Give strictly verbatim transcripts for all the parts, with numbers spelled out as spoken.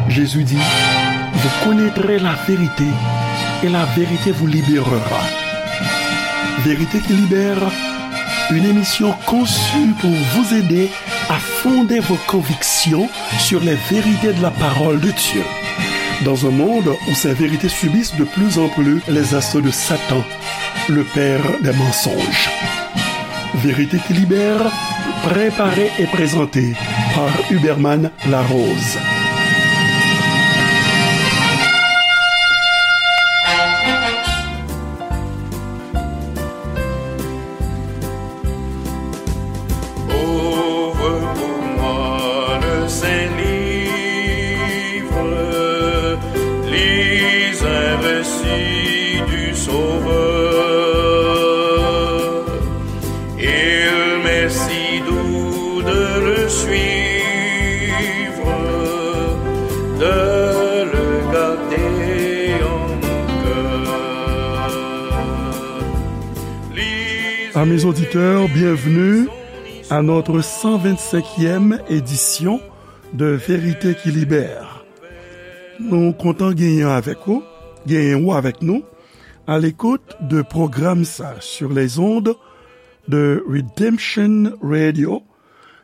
Jésus dit, vous connaîtrez la vérité et la vérité vous libérera. Vérité qui libère, une émission conçue pour vous aider à fonder vos convictions sur les vérités de la parole de Dieu. Dans un monde où ces vérités subissent de plus en plus les assauts de Satan, le père des mensonges. Vérité qui libère, préparée et présentée par Huberman Larose. Ouvre pour moi le saint livre, lis un récit du Sauveur. Il m'est si doux de le suivre, de le garder en mon cœur. Amis auditeurs, bienvenue à notre cent vingt-cinquième édition de Vérité qui Libère. Nou kontan genyen avèk ou, genyen ou avèk nou, à l'écoute de pwogram sa sur les ondes de Redemption Radio,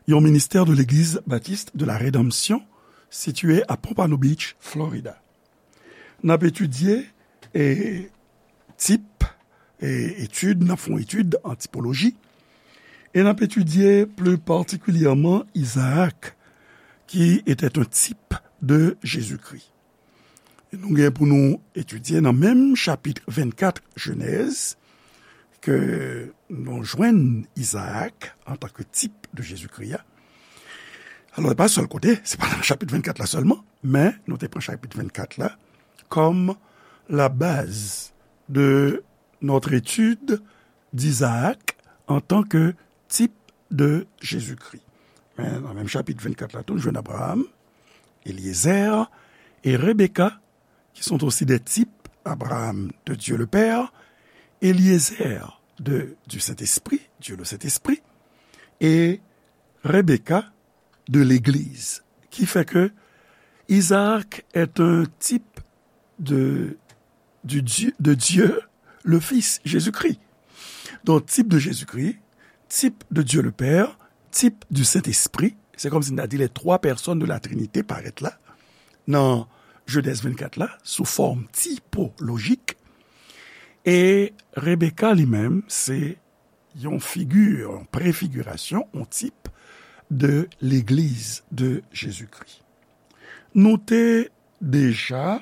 yon ministè de Legliz Batis de la Redanmsyon, sitiye a Pompano Beach, Florida. N ap etidye, e, tip, e, etid, n ap fè yon etid an tipoloji, e n ap etidye pli patikilyèman Izaak, qui était un type de Jésus-Christ. E nou gen pou nou etidye nan menm chapit vennkat Jenèz, ke nou jwenn Izaak antanke tip de Jezikri a. Alò, se pa sèl kote, se pa nan chapit vennkat la sèlman, men nou te pran chapit vennkat la kòm la baz de notre étude d'Isaac en tant que type de Jésus-Christ. Men nan menm chapit vennkat la tou, nou jwenn Abraham, Eliezer e Rebecca, qui sont aussi des types, Abraham de Dieu le Père, Eliezer de, du Saint-Esprit, Dieu le Saint-Esprit, et Rebecca de l'Église, qui fait que Isaac est un type de, du Dieu, de Dieu le Fils, Jésus-Christ. Donc, type de Jésus-Christ, type de Dieu le Père, type du Saint-Esprit. Se kòmsi n ta di les trois personnes de la Trinité parèt la nan Jenèz vennkat la, sou fòm tipolojik. E Rebecca li menm, se yon figi, yon prefigirasyon, yon tip de Legliz de Jezikri. Nou te deja,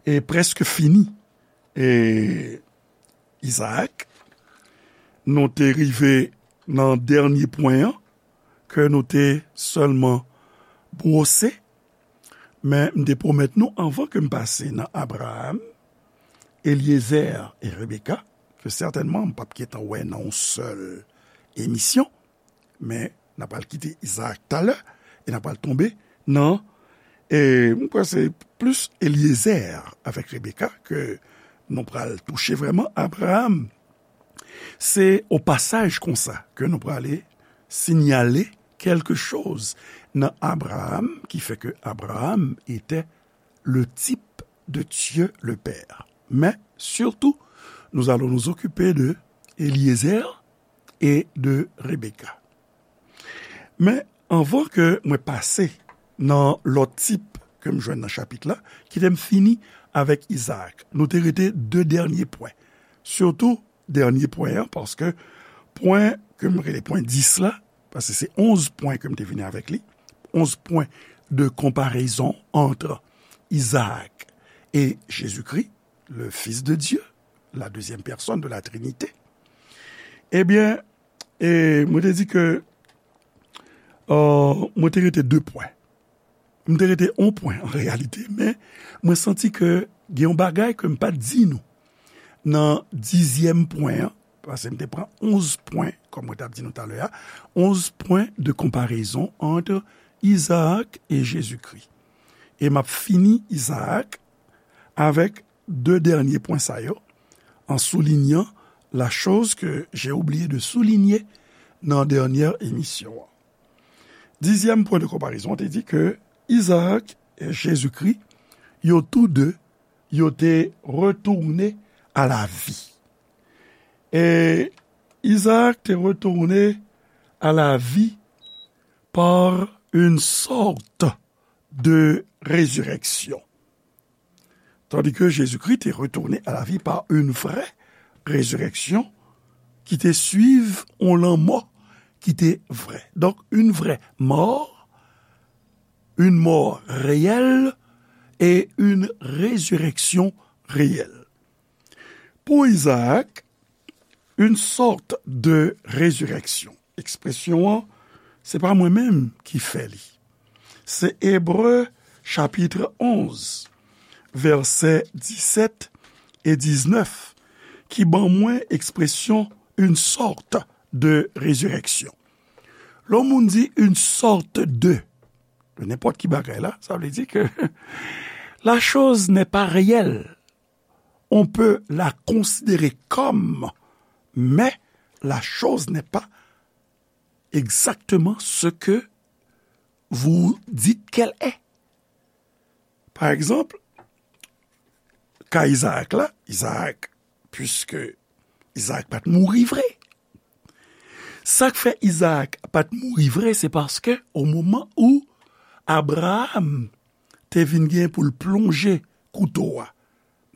e, prèske fini, e, Izaak, nou te rive nan dènye pwen an, ke nou te sèlman bwose, men m te pwomèt nou anvan ke m pase nan Abraham, Eliezer e Rebecca, ke sètènman m p ap gentan wè nan yon sèl emisyon, men n ap al kite Izaak talè, e n ap al tonbe nan, e m kwè se plis Eliezer avèk Rebecca ke nou pral touche vrèman. Abraham, se o pasaj konsa ke nou prale sinyale kèlke choz nan Abraham ki fè ke Abraham etè le tip de Dye le Pè. Men, sitou, nous allons nous occuper de Eliezer e de Rebecca. Men, anvan ke mwen pase nan lòt tip ke m jwenn nan chapit la, kite m fini avèk Izaak. Nou te rete de dènye pwen. Sitou, dènye pwen an, paske pwen ke m rele pwen dis la, paske se onz pwen ke m te vini avèk li, onz pwen de konparezon ant Izaak e Jezikri, le Fils de Dieu, la deuxième personne de la Trinité. Ebyen, e mwen te di ke, euh, mwen te rete de pwen. M te rete yon pwen, an reyalite, men mwen santi ke gen yon bagay ke m pa t di nou nan dizyèm pwen an, paske m te pran onz pwen, kòm mwen t ap di nou talè a, onz pwen de konparezon ant Izaak e Jezikri. E m ap fini Izaak avèk de dènye pwen sa yo, an soulinyan la choz ke j'ai oublié de souligner nan dènyè emisyon an. Dizyèm pwen de konparezon, te di ke Izaak e Jezikri, yo tou de, yo te retourne à la vie. E Izaak te retourne à la vie par une sorte de résurrection. Tandis que Jésus-Christ est retourné à la vie par une vraie résurrection qui te suiv yon lanmò ki te vrè. Donk, yon vrè mò, yon mò reyèl e yon rezirèksyon reyèl. Pou Izaak, une sorte de résurrection. Ekspresyon an, se pa mwen menm ki fè li. Se Ebre chapit onz, vèsè disèt e diznèf, ki ban mwen ekspresyon une sorte de résurrection. Lè yon moun di une sorte de, de nenpòt ki bagay la, sa vle di ke la chose n'est pas réelle. On peut la considérer comme, mais la chose n'est pas exactement ce que vous dites qu'elle est. Pa egzanp, ka Izaak la, Izaak, puiske Izaak pa t mouri vre. Sa k fè Izaak pa t mouri vre, se paske o moman ou Abraram te vin gen pou l plonje kouto a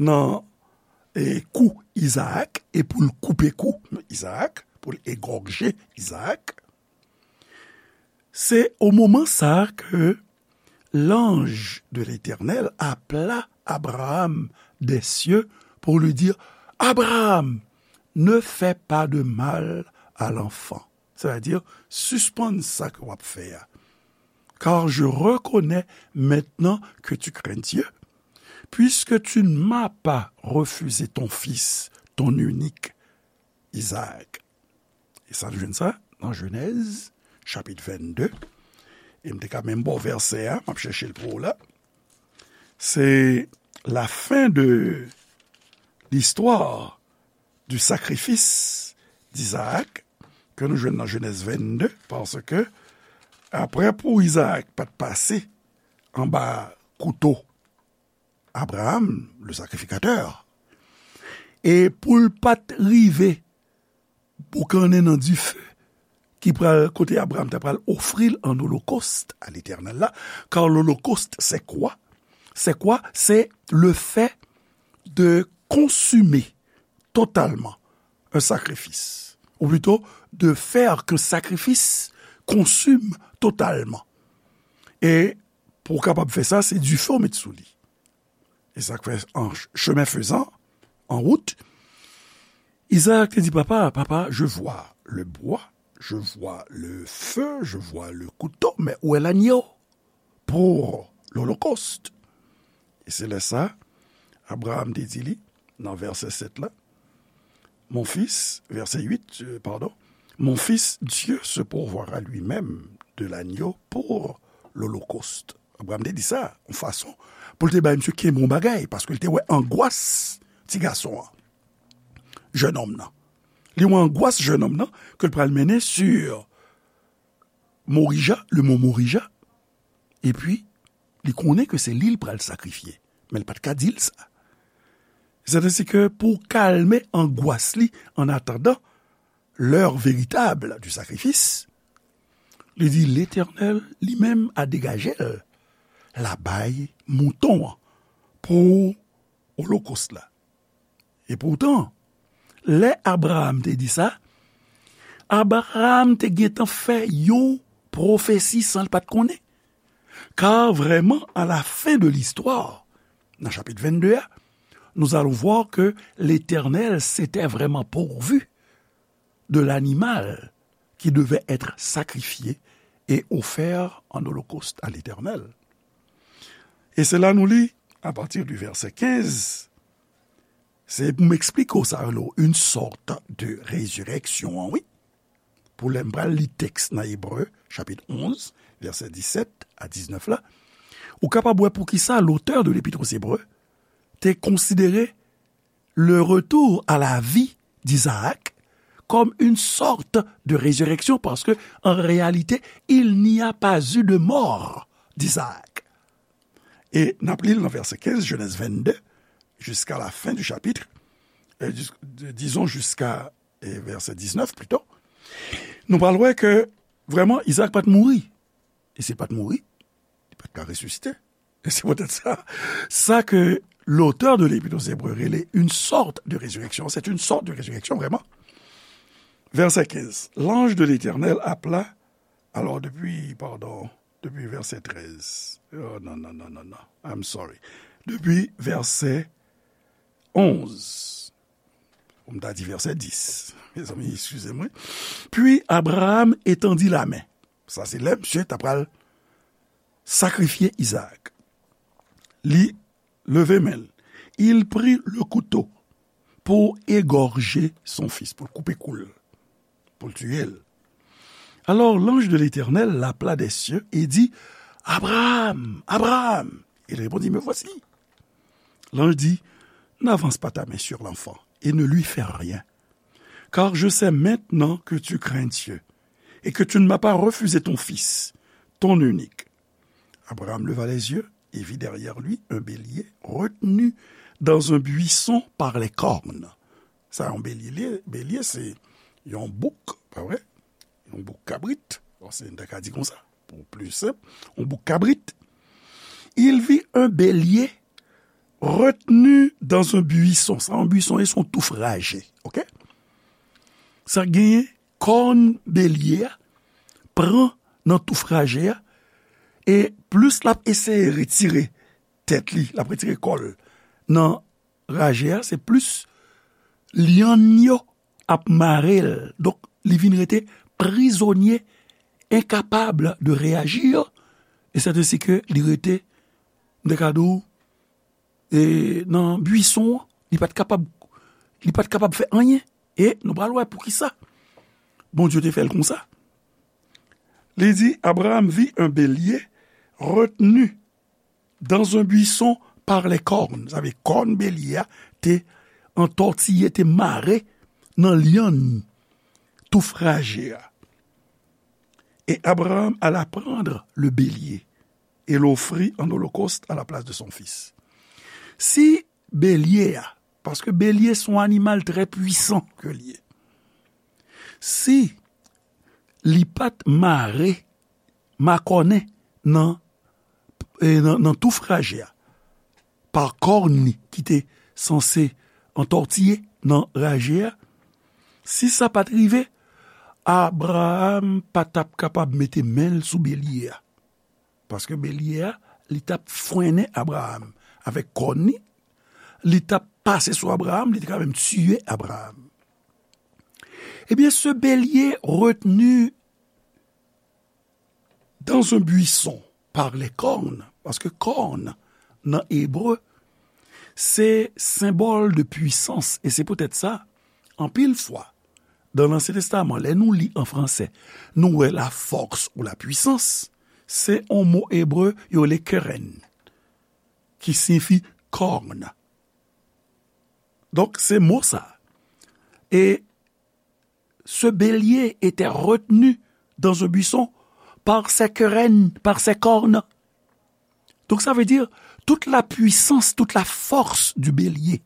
nan, e, kou Izaak e pou l koupe kou Izaak, pou l egòje Izaak, se o moman sa a ke l'ange de l'Éternel appela Abraham des cieux pour lui dire, Abraham, ne fais pas de mal à l'enfant. Sètadi, sispann sa ke w ap fè a. Car je reconnais maintenant que tu crains Dieu, puisque tu ne m'as pas refusé ton fils, ton unique, Isaac. E sa nou jwenn sa nan Jenèz, chapit vennde. E m te ka menm ba w vèsè a, m ap chèche l pou ou la. C'est la fin de l'histoire du sacrifice d'Isaac, ke nou jwenn nan Jenèz vennde, paske apre pou Izaak pa t pase anba kouto Abraham, le sacrificateur, e pou l pa t rive boukannen nan dife ki pral, kote Abraham ta pral ofri l an olokòst a Letènèl la, car l'holocauste, c'est quoi? C'est quoi? C'est le fait de consumer totalement un sacrifice, ou plutôt de faire qu'un sacrifice consume totalement. E pou w kapab fè sa, se dife w met sou li. E sa k fè, an ch-, chemin faisant, en route, Isaac te di, Papa, papa, je vois le bois, je vois le feu, je vois le couteau, mais où est l'agneau pour l'holocauste? E se lè sa, Abraham te di li, nan vèsè sèt la, Mon fils, verset huit, euh, pardon, Mon fils, Dieu se pourvoira lui-même de l'agneau pour l'holocauste. Abraham te di sa, yon fason pou l te bay misye kenbe yon bagay, paske l te wè angwas ti gason an, jennonm nan. Li wè angwas jennonm nan, ke l pral mennen sur Morija, le mont Morija, epi li konnen ke se li l pral sakrifye, men l pa t ka di l sa. Sètadi ke pou kalme angwas li, an atandan, l'heure véritable du sacrifice, li di, Letènèl li menm a degaje l, l a bay mouton an pou olokòs la. E poutan, lè Abraham te di sa, Abraham te gentan fè yon pwofesi san l pa t konnen. Car vraiment, à la fin de l'histoire, dans chapitre vingt-deux, nous allons voir que l'Éternel s'était vraiment pourvu de l'animal qui devait être sacrifié et offert en holocauste à l'Éternel. E se la nou li, à partir du verset quinze, se pou m eksplike w sa yo, une sorte de résurrection, wi. Pou lè m pral li tèks nan Ebre, chapit onz, vèsè disèt a diznèf la, ou kapab wè poukisa l'auteur de l'Épître aux Hébreux te konsidere le retour à la vie d'Isaac comme une sorte de résurrection, parce que, en réalité, il n'y a pas eu de mort d'Isaac. E n ap li l nan vèsè kenz, Genèse vingt-deux, jusqu'à la fin du chapitre, euh, dis-, disons jusqu'à, euh, verset dix-neuf plutôt. Nou pral wè ke vrèman Izaak pa t mouri. E si l pa t mouri, li pa t ka resisite. E se poutèt sa, sa ke l'auteur de l'Épître aux Hébreux rele une sorte de résurrection, c'est une sorte de résurrection vraiment. Verset quinze, l'ange de l'Éternel appela, alors depuis, pardon, depuis verset treize. Oh non, non, non, non, non. I'm sorry. Depuis verset onze. Ou m ta di verset dix. Mezanmi, excusez-moi. Puis Abraham étendit la main. Sa se lè misye ta pral sakrifye Izaak. Li leve men l. Il prit le couteau pour égorger son fils, pou l koupe kou l, pou l tiye l. Alors l'ange de l'Éternel l'appela des cieux et dit, Abraham, Abraham. Il répondit, Me voici. L'ange dit, N'avance pas ta main sur l'enfant et ne lui fais rien, car je sais maintenant que tu crains Dieu et que tu ne m'as pas refusé ton fils, ton unique. Abraham leva les yeux et vit derrière lui un bélier retenu dans un buisson par les cornes. Sa yon belye, belye se yon bouk, pa vre? Yon bouk kabrit. Bon, se n ta ka di konsa, pou pli senp, yon bouk kabrit. Il vit un bélier retenu dans un buisson. Sa yon buisson, e se yon touf raje, oke? Sa genyen kòn belye a pran nan touf raje a, e plis l ap eseye retire tèt li, l ap retire kò l nan raje a, se plis lyann yo ap mare l. Donk, li vin rete prizonye, enkapab de reyaji, e sèt ensi ke li rete, m te ka di w, e nan buisson an, li pa t kapab, li pa t kapab fè anyen. E nou pral wè poukisa Bondye te fè l konsa. Li di, Abraham vit un bélier retenu dans un buisson par les cornes. Sa vle kòn belye a te antòtiye, te mare nan lyann touf raje a. Et Abraham alla prendre le bélier et l'offrit en holocauste à la place de son fils. Si belye a, paske belye se yon animal trè pwisan ke l ye. Si li pa t mare, makònen nan, e, nan, nan touf raje a, pa kòn li ki te sanse antòtiye nan raje a, si sa pa t rive, Abraham pa t ap kapab mete men l sou belye a. Paske belye a, li t ap frennen Abraham avèk kòn li, li t ap pase sou Abraham, li te ka menm tiye Abraham. Ebyen, ce bélier retenu dans un buisson par les cornes, paske kòn nan ebre, se senbòl de pwisans, e se poutèt sa, anpil fwa, dan Lansyen Testaman, lè nou li an fransè, nou wè la force ou la puissance, se yon mo ebre yo rele keren, ki siyifi kòn. Donk, se mo sa. E ce bélier était retenu dans un buisson par ses querelles, par ses cornes. Donc ça veut dire, toute la puissance, toute la force du bélier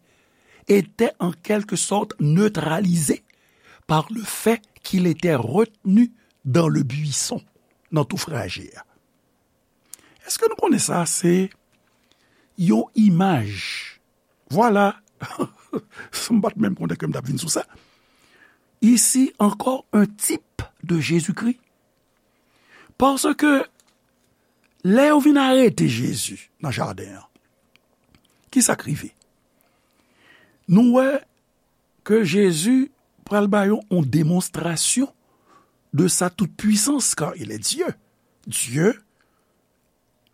était en quelque sorte neutralisée par le fait qu'il était retenu dans le buisson, nan touf raje a. Èske nou konnen sa se yon imaj? Vwala. M pa t menm konnen ke m t ap vin sou sa. Ici encore un type de Jésus-Christ. Paske lè yo vin arete Jezi nan jaden an, ki sa k rive? Nou wè ke Jezi pral ba yo yon demonstrasyon de sa tout puissance, car il est Dieu. Dieu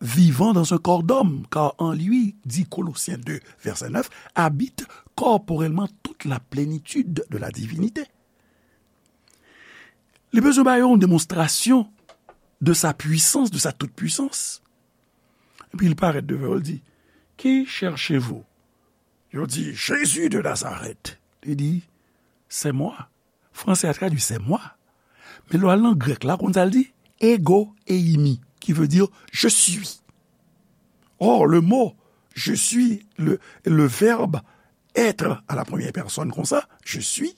vivant dans un corps d'homme, car en lui, dit Colossiens deux, verset neuf, habite corporellement toute la plénitude de la divinité. Li bezwen ba yo yon demonstrasyon de sa puissance, de sa toute puissance. Epi li parèt devan yo, li di, Qui cherchez-vous? Yo di, Jésus de Nazareth. Li di, C'est moi. Fransè a tradui c'est moi. Men lè w al nan grèk la, konn sa l di? Ego eimi, qui veut dire je suis. Or, le mot je suis, le, le verbe être à la première personne konsa, je suis,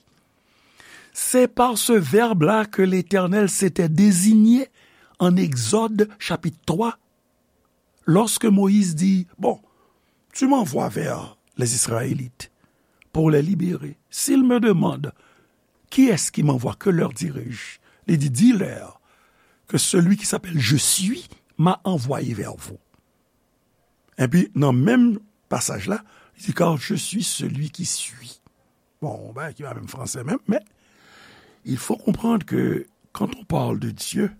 c'est par ce verbe-là que l'Éternel s'était désigné en Exode chapitre trois, lorsque Moïse dit, bon, tu m'envoies vers les Israélites pour les libérer. S'ils me demandent qui est-ce qui m'envoie, que leur dirai-je? Li di, dis-leur que celui qui s'appelle Je suis m'a envoyé vers vous. Epi, nan menm pasaj la, li di, car je suis celui qui suis. Bon, yon bagay ki pa menm fransè menm, men il faut comprendre que quand on parle de Dieu,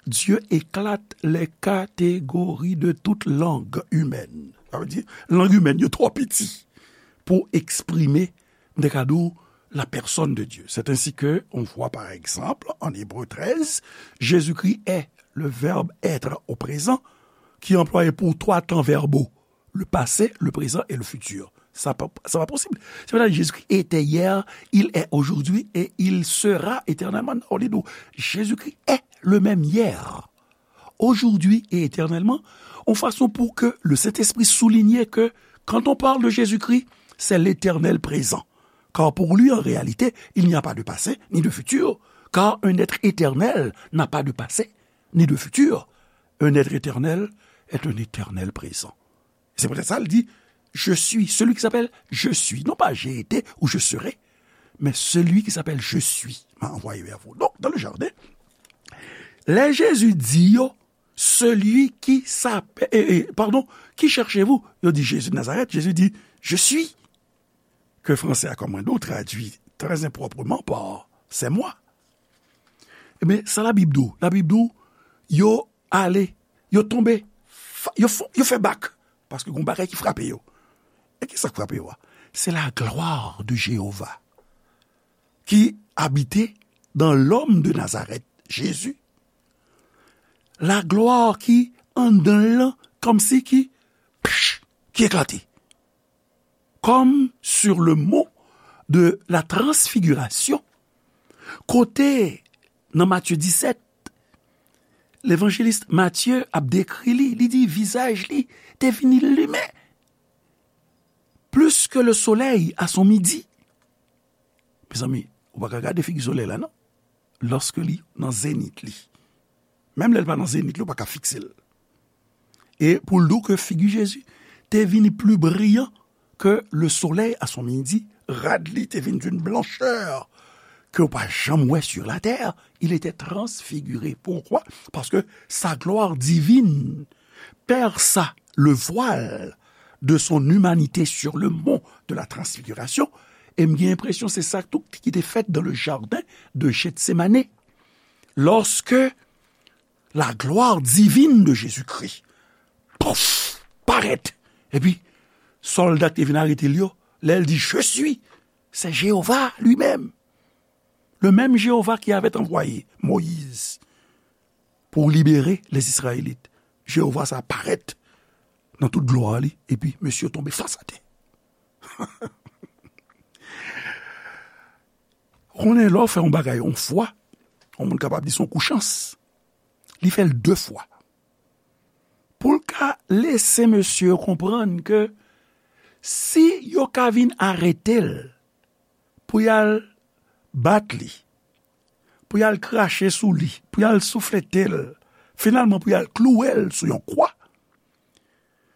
Dieu éclate les catégories de toute langue humaine. Sa vle di, lang imèn yo twò piti pou eksprime, m te ka di w, la personne de Dieu. C'est ainsi que on voit par exemple en Hébreux treize, Jésus-Christ est le verbe être au présent, qui est employé pour trois temps verbaux, le passé, le présent et le futur. Sa pa, sa pa posib. Se pa Jésus-Christ était hier, il est aujourd'hui et il sera éternellement. Non, li di w, Jésus-Christ est le même hier, aujourd'hui et éternellement, en façon pour que le Saint-Esprit souligne que quand on parle de Jésus-Christ, c'est l'Éternel présent. Car pour lui, en réalité, il n'y a pas de passé ni de futur, car un être éternel n'a pas de passé ni de futur. Un être éternel est un éternel présent. C'est peut-être ça, il dit, je suis, celui qui s'appelle je suis, non pas j'ai été ou je serai, mais celui qui s'appelle je suis m'a envoyé vers vous. Donc, dans le jardin, lè Jésus di yo, celui qui s'appelle, eh, eh, pardon, qui cherchez-vous? Yo di Jésus de Nazareth, Jésus di, je suis, ke fransè a, kòm mwen di w, tradui très improprement par c'est moi. Ebyen, sa Labib di w? Labib di w, yo ale, yo tonbe, fa- yo, fon- yo fè bak, paske gon bagay ki frape yo. E ki sa k frape yo a? C'est la gloire de Jéhovah qui habitait dans l'homme de Nazareth, Jésus. La gloire ki anndan l lan, kòmsi ki, pch, ki eklate. Comme sur le mont de la transfiguration, kote nan Matye disèt, levanjelis Matye ap dekri li, li di vizaj li te vin limen plus que le soleil à son midi. Mezanmi, ou pa ka gade figi solèy la, non, lòske li nan zenit li. Menm lè l pa nan zenit li, ou pa ka fikse l. E pou l di w ke figi Jezi te vini pli briyan ke le soleil à son midi, rad li te vin d'une blancheur ke w pa janm wè sur la terre, il était transfiguré. Pourquoi? Parce que sa gloire divine perça le voile de son humanité sur le mont de la transfiguration. E m gen enpresyon se sa tou ki te fèt dans le jardin de Gethsemane. Lorsque la gloire divine de Jésus-Christ, pouf, parèt. Epi, sòlda ki te vin arete l yo, lè l di, je suis, c'est Jéhovah lui-même. Le même Jéhovah qui avait envoyé Moïse pour libérer les Israélites. Jewova sa parèt nan tout glwa li, epi mesye yo tonbe fas atè. Konnen lè w fè yon bagay yon fwa, yon moun kapab di se yon kou chans. Li fè l de fwa. Pou l ka lese mesye yo konprann ke si yo ka vin arete l, pou y al bat li, pou y al krache sou li, pou y al souflete l, finalman pou y al klouwe l sou yon kwa,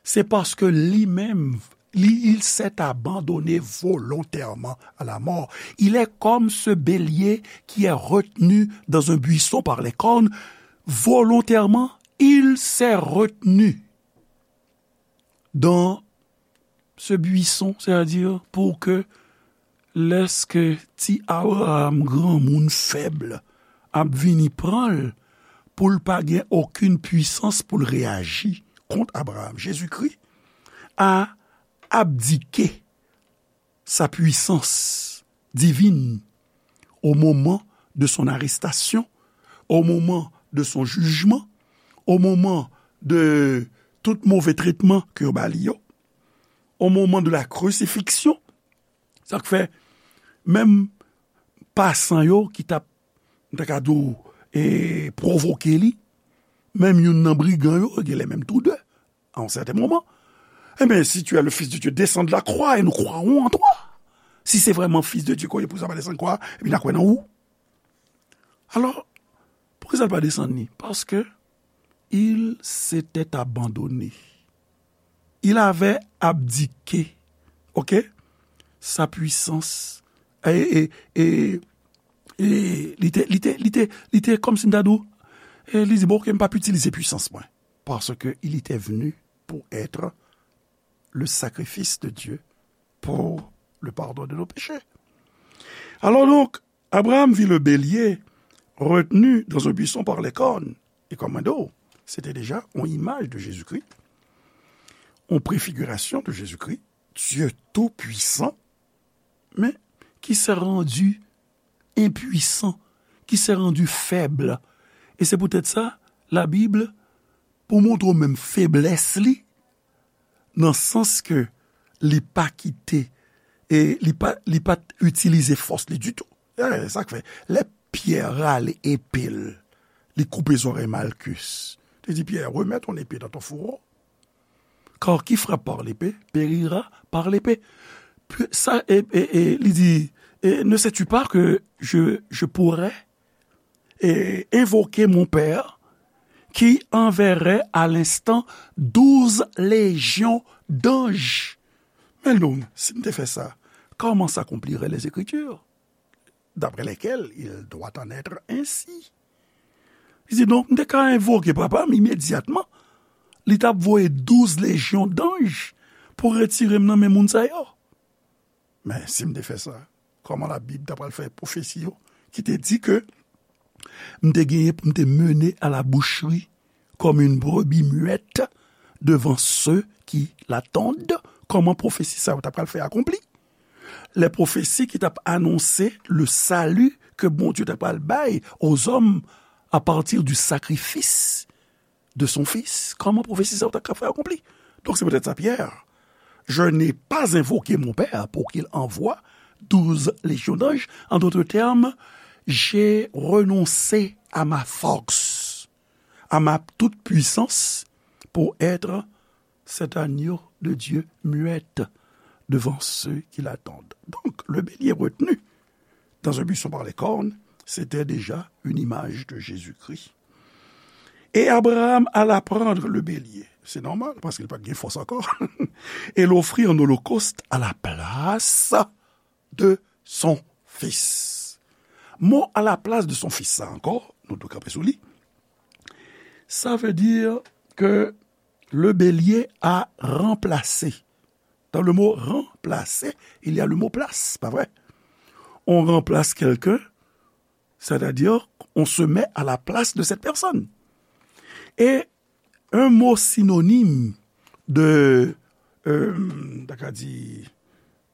se paske li menm, li, il s'est abandonné volontairement à la mort. Il est comme ce bélier qui est retenu dans un buisson par les cornes. Volontairement, il s'est retenu dans ce buisson, c'est-à-dire pour que lèske ti Abraham, granmoun fèb, ap vini pran l, pou l pa gen okenn pwisans pou l reyaji kont Abraham. Jezikri a abdike sa puissance divine au moment de son arrestation, au moment de son jugement, au moment de tout move tretman ke yo ba li yo, au moment de la crucifixion. Sa k fè, menm pasan yo ki t ap, m ta ka di w, e, pwovoke li, menm youn nan brigan yo, genlè menm tou de, à un certain moment, eh bien, si tu es le Fils de Dieu, descends de la croix et nous croirons en toi. Si se vrèman Fis de Dye ke w ye, poukisa w pa desann kwa a, epi n a kwè nan ou? Alò, poukisa l pa desann li? Paske il s'était abandonné. Il avait abdiqué, ok, sa puissance. E, e, e, e li te, li te, li te, li te, kòmsi m ta di w, e li di, bon, ok, m p ap itilize pwisans mwen. Parce que il était venu pour être le sacrifice de Dieu pour le pardon de nos péchés. Alors donc, Abraham vit le bélier retenu dans un buisson par les cornes. Et comme un dos, c'était déjà une image de Jésus-Christ, une préfiguration de Jésus-Christ, Dieu tout-puissant, mais qui s'est rendu impuissant, qui s'est rendu faible. E se poutèt sa, Labib, pou montre w menm feblès li, nan sans ke li pa kite, e li pa, li pa t itilize fòs li ditou. E, sa k fè, lè Pyè rale epe l, li koupe zòrèy Malkis. Li di, Pyè, remets ton épée dans ton fourreau. Car qui frappe par l'épée périra par l'épée. Puis, ça, et, et, et il dit, et ne sais-tu pas que je, je pourrais et invoquer mon Père qui enverrait à l'instant douze légions d'anges. Mais donc, si m te fè sa, comment s'accompliraient les Écritures, d'après lesquelles il doit en être ainsi? Li di, donk, m te ka envoke Papa m imedyatman. Li t ap voye douz lejyon danj pou retire m nan men moun sa yo. Men, si m te fè sa, kòman Labib ta pral fè pwofesi yo ki te di ke m te genyen pou m te mennen à la boucherie comme une brebis muette devant ceux qui l'attendent? Kòman pwofesi sa yo ta pral fè akonpli? Lè pwofesi ki t ap anonse le salut ke Bondye ta pral bay aux hommes à partir du sacrifice de son Fils. Kòman pwofesi sa yo ta ka fè akonpli? Donk, se poutèt sa, Pierre, je n'ai pas invoqué mon Père pour qu'il envoie douze légions d'anges. En d'autres termes, j'ai renoncé à ma force, à ma toute-puissance pour être cet agneau de Dieu muette devant ceux qui l'attendent. Donc, le bélier retenu dans un buisson par les cornes, c'était déjà une image de Jésus-Christ. Et Abraham alla prendre le bélier. C'est normal, parce qu'il n'a pas de force encore. Et l'offrit en holocauste à la place de son fils. Mo à la place de son fils, sa ankò, nou dwe kanpe sou li. Ça veut dire que le bélier a remplacé. Dans le mot remplacer, il y a le mot place, pas vrai? On remplace quelqu'un, c'est-à-dire on se met à la place de cette personne. Et un mot synonyme de, euh, m ta ka di,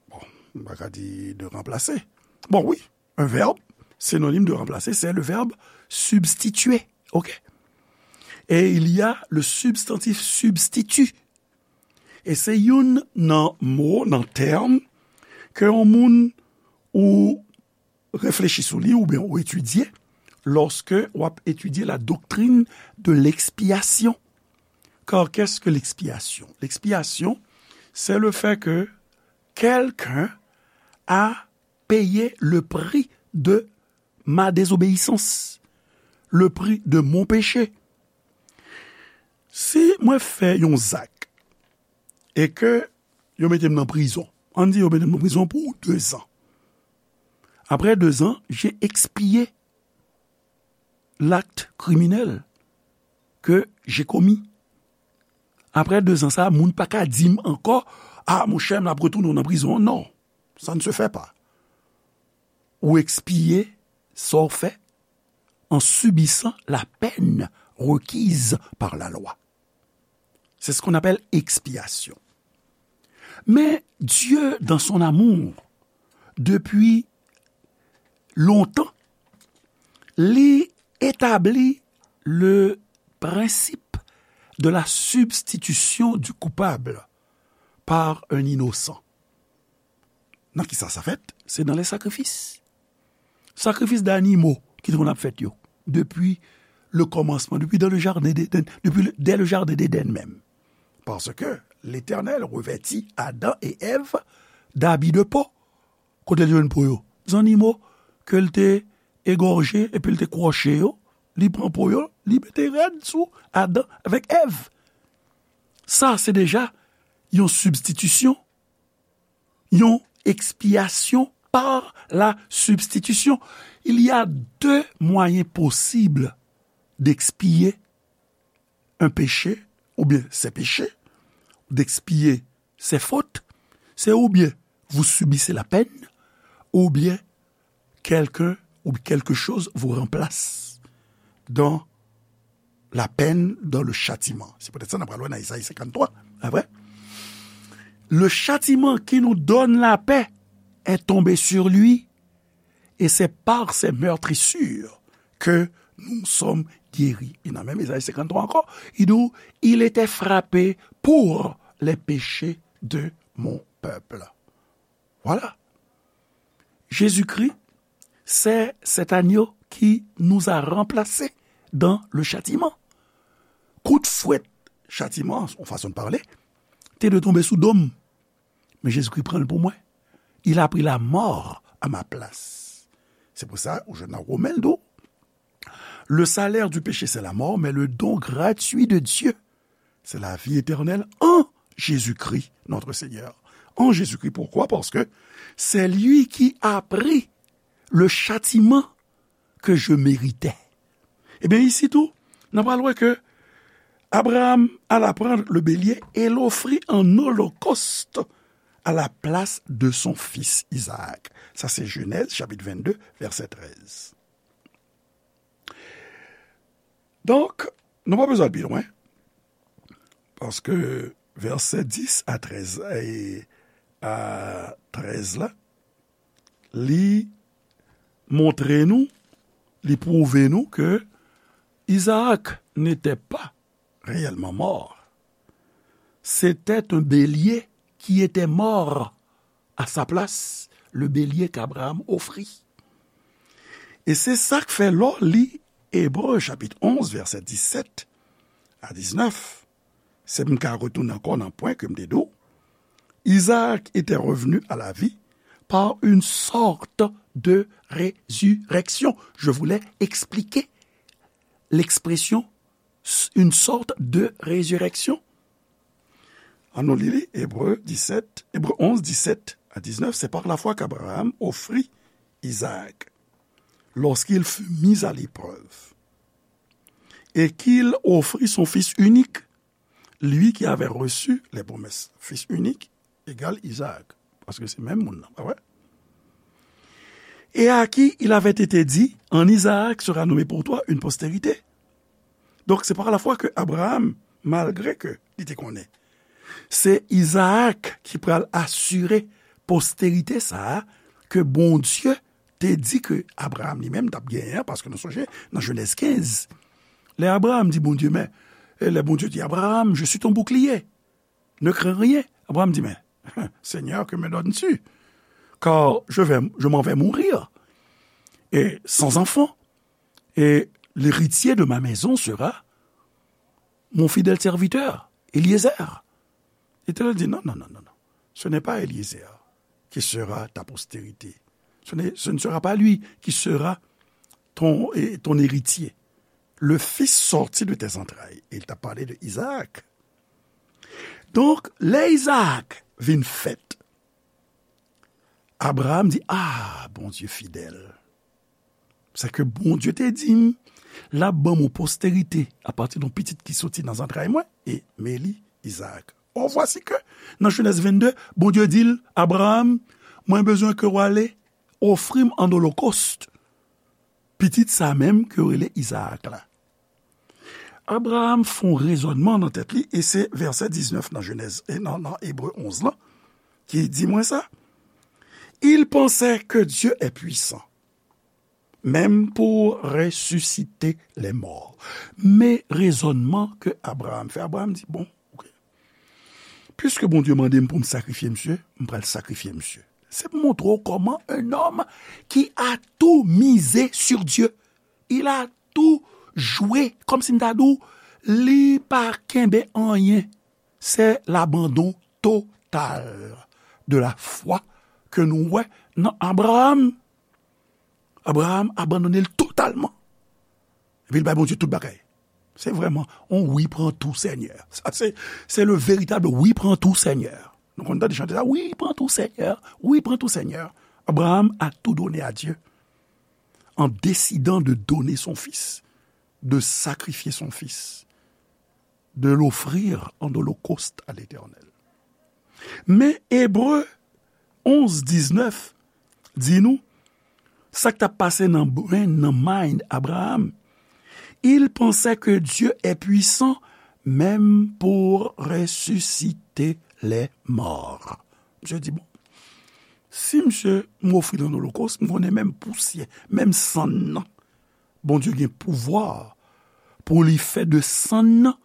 bon, m pa ka di de remplacer. Bon, oui, un verbe synonyme de remplacer, c'est le verbe substituer. Ok? Et il y a le substantif substitut. E se youn nan mo, nan tèm, ke yon moun ou reflechi sou li oubyen ou etidye, lorsque w ap étudier la doctrine de l'expiation. Car qu'est-ce que l'expiation? L'expiation, c'est le fait que quelqu'un a payé le prix de ma désobéissance, le prix de mon péché. Si mwen fè yon zak e ke yo mete m nan prizon, ann di yo mete m nan prizon pou de zan. Après deux ans, j'ai expié l'acte criminel que j'ai commis. Après deux ans, sa, moun pa ka di m ankò, ah, monchè, m ap retounen w nan prizon. Non, ça ne se fait pas. Ou ekspiye sa w fè en subissant la peine requise par la loi. C'est ce qu'on appelle expiation. Mais Dieu, dans son amour, depuis longtemps, li établit le principe de la substitution du coupable par un innocent. Nan ki sa sa fèt? Se nan lè sakrifis. Sakrifis danimo ki te konn ap fèt yo, depi le kòmansman, depi dans le jardin d'Éden, depi le, dès le jardin d'Éden menm. Paske Letènèl revèti Adan e Èv dabi de po. Kote l jwenn po yo? Zannimo ke l te egòje epi l te kwòche yo, li pran po yo, li mete rad sou Adan avèk Èv. Sa, se deja yon sibstitisyon, yon ekspyasyon par la substitution. Il y a deux moyens possibles d'expier un péché, ou bien ses péchés, d'expier ses fautes. C'est ou bien vous subissez la peine, ou bien quelqu'un ou quelque chose vous remplace dans la peine, dans le châtiment. Se poutèt sa n ap pral wè nan Ezayi senkanntwa, pa vre? Le châtiment qui nous donne la paix est tombé sur lui, et c'est par ses meurtrissures que nous sommes guéris. E nan menm Ezayi senkanntwa ankò, li di, il était frappé pour les péchés de mon peuple. Voilà. Jésus-Christ, c'est cet agneau qui nous a remplacés dans le châtiment. Kout fwèt chatiman, yon fason de pale, te dwe tonbe sou do m. Men Jezikri pran l pou mwen. Il a pris la mort à ma place. Se pou sa, ou jwenn nan Women, l di w, le salaire du péché, c'est la mort, mais le don gratuit de Dieu, c'est la vie éternelle en Jésus-Christ, notre Seigneur. En Jésus-Christ, pourquoi? Parce que c'est lui qui a pris le châtiment que je méritais. Ebyen, isi tou, n ap pral wè ke Abraham alla prendre le bélier et l'offrit en holocauste à la place de son fils Isaac. Sa se Jenèz, chapit vennde, vèsè trèz. Donk, nou pa bezwen al pi lwen, paske vèsè dis a trèz, e a trèz la, li montre nou, li pwouve nou ke Isaac n'était pas réellement mort. C'était un bélier qui était mort à sa place, le bélier qu'Abraham offrit. E se sa k fè lè w li Ebre chapit onz, vèsè disèt a diznèf, se m ka retounen ankò nan pwen ke m te di w, Isaac était revenu à la vie par une sorte de résurrection. Je voulais expliquer l'expression s-, une sorte de résurrection. Annou li li, Ebre disèt, Ebre onz, disèt a diznèf, c'est par la foi qu'Abraham offrit Isaac lorsqu'il fut mis à l'épreuve, et qu'il offrit son fils unique, lui qui avait reçu les promesses. Fils unique égale Isaac, paske se menm moun nan, pa vre? Et à qui il avait été dit, en Isaac sera nommé pour toi une postérité. Donk, se pa lafwa ke Abraham, malgre ke li te konnen se Izaak ki pral asire posterite sa a ke Bondye te di ke Abraham li menm t ap genyen an, paske nou sonje nan Jenèz kenz, lè Abraham di Bondye, men, e lè Bondye di, Abraham, je suis ton bouclier, ne crains rien. Abraham di, men, Seigneur, que me donnes-tu? Car je vais, je m'en vais mourir et sans enfant. Et l'héritier de ma maison sera mon fidèle serviteur, Eliezer. L'Éternel dit, non, non, non, non, non. Ce n'est pas Eliezer qui sera ta postérité. Ce n'est, ce ne sera pas lui qui sera ton, et ton héritier. Le fils sorti de tes entrailles. Et il t'a parlé de Isaac. Donk, lè Izaak vin fèt, Abraham di, ah, Bondye fidèl. Sa ke Bondye te di m, l ap ban m yon posterite apati de yon pitit ki soti nan zantray mwen, e men li, Izaak. Or, vwasi ke, nan Jenèz vennde, Bondye di l, Abraham, mwen bezwen ke w ale ofri m an olokòst pitit sa menm ke yo rele Izaak la. Abraham fè yon rezònman nan tèt li, e se vèsè diznèf nan Jenèz, e nan, nan Ebre onz lan, ki di mwen sa. Il pensait que Dieu est puissant, même pour ressusciter les morts. Men rezònman ke Abraham fè, Abraham di, bon, ok. Piske Bondye mande m pou m sakrifye misye, m pral sakrifye misye. Se pou montre w kòman un homme qui a tout misé sur Dieu. Il a tout joué, kòmsi m ta di w, li pa kenbe anyen. Se labandon total de la foi ke nou wè nan Abraham. Abraham abandone l totalman. Epi l bay Bondye tout bagay. Se vrèman on wi pran tou Senyè. Sa se, se le veritab wi pran tou Senyè. Nou konn tande chante sa, wi pran tou Senyè, wi pran tou Senyè. Abraham a tout donné à Dieu en décidant de donner son fils, de sacrifier son fils, de l'offrir en holocauste à l'Éternel. Men Ebre onz diznèf di nou, sa k t ap pase nan brain, nan mind Abraham. Il pensait que Dieu est puissant même pour ressusciter les morts. Misye di, bon, si misye m ofri l an olokòs, m konnen menm pousyè, menm sann nan, Bondye gen pouvwa pou li fè de sann nan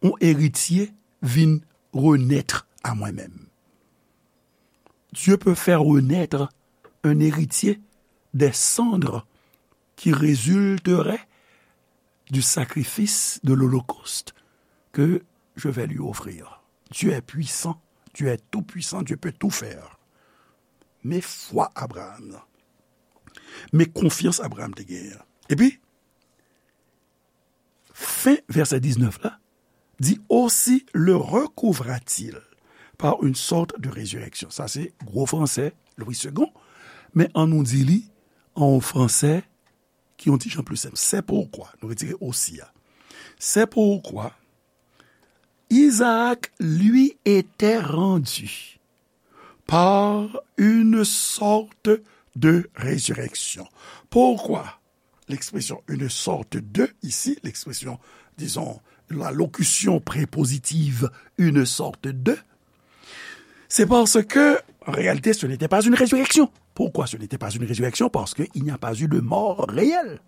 yon eritye vin renèt a mwen menm. Dieu peut faire renaître un héritier des cendres qui résulterait du sacrifice de l'holocauste que je vais lui offrir. Dieu est puissant, Dieu est tout-puissant, Dieu peut tout faire. Men fwa Abraham nan. Men konfyans Abraham te genyen an. Epi, fen vèsè diznèf la, di, aussi le recouvra-t-il par une sorte de résurrection. Sa se gwo fransè Louis Segond, men an nou di li an yon fransè ki yon ti jan pli senp. C'est pourquoi, nou retire aussi a. C'est pourquoi Isaac lui était rendu par une sorte de résurrection. Pourquoi l'expression une sorte de ici, l'expression, disons, la locution prépositive une sorte de, c'est parce que, en réalité, ce n'était pas une résurrection. Pourquoi ce n'était pas une résurrection ? Parce qu'il n'y a pas eu de mort réelle.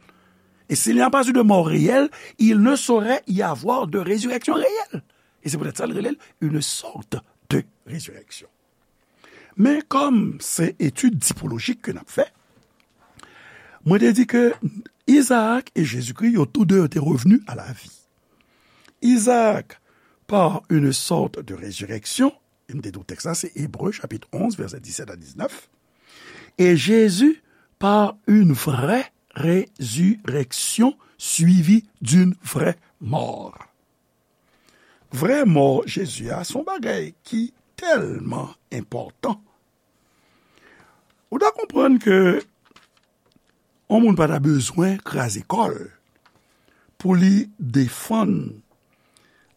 Et s'il n'y a pas eu de mort réelle, il ne saurait y avoir de résurrection réelle. Et c'est peut-être ça le réel, une sorte de résurrection. Men kòm se etid tipolojik ke n ap fè, mwen te di ke Isaac et Jésus-Christ, yo tou de yo te revenu à la vie. Isaac, par une sorte de résurrection, e m te di w tèks la, se Ebre, chapit onz, vèsè disèt a diznèf, et Jésus, par une vraie résurrection suivie d'une vraie mort. Vrè mò Jezi a, se yon bagay ki tèlman enpòtan. Ou ta konprann ke yon moun pa ta bezwen kraze kò l pou li defann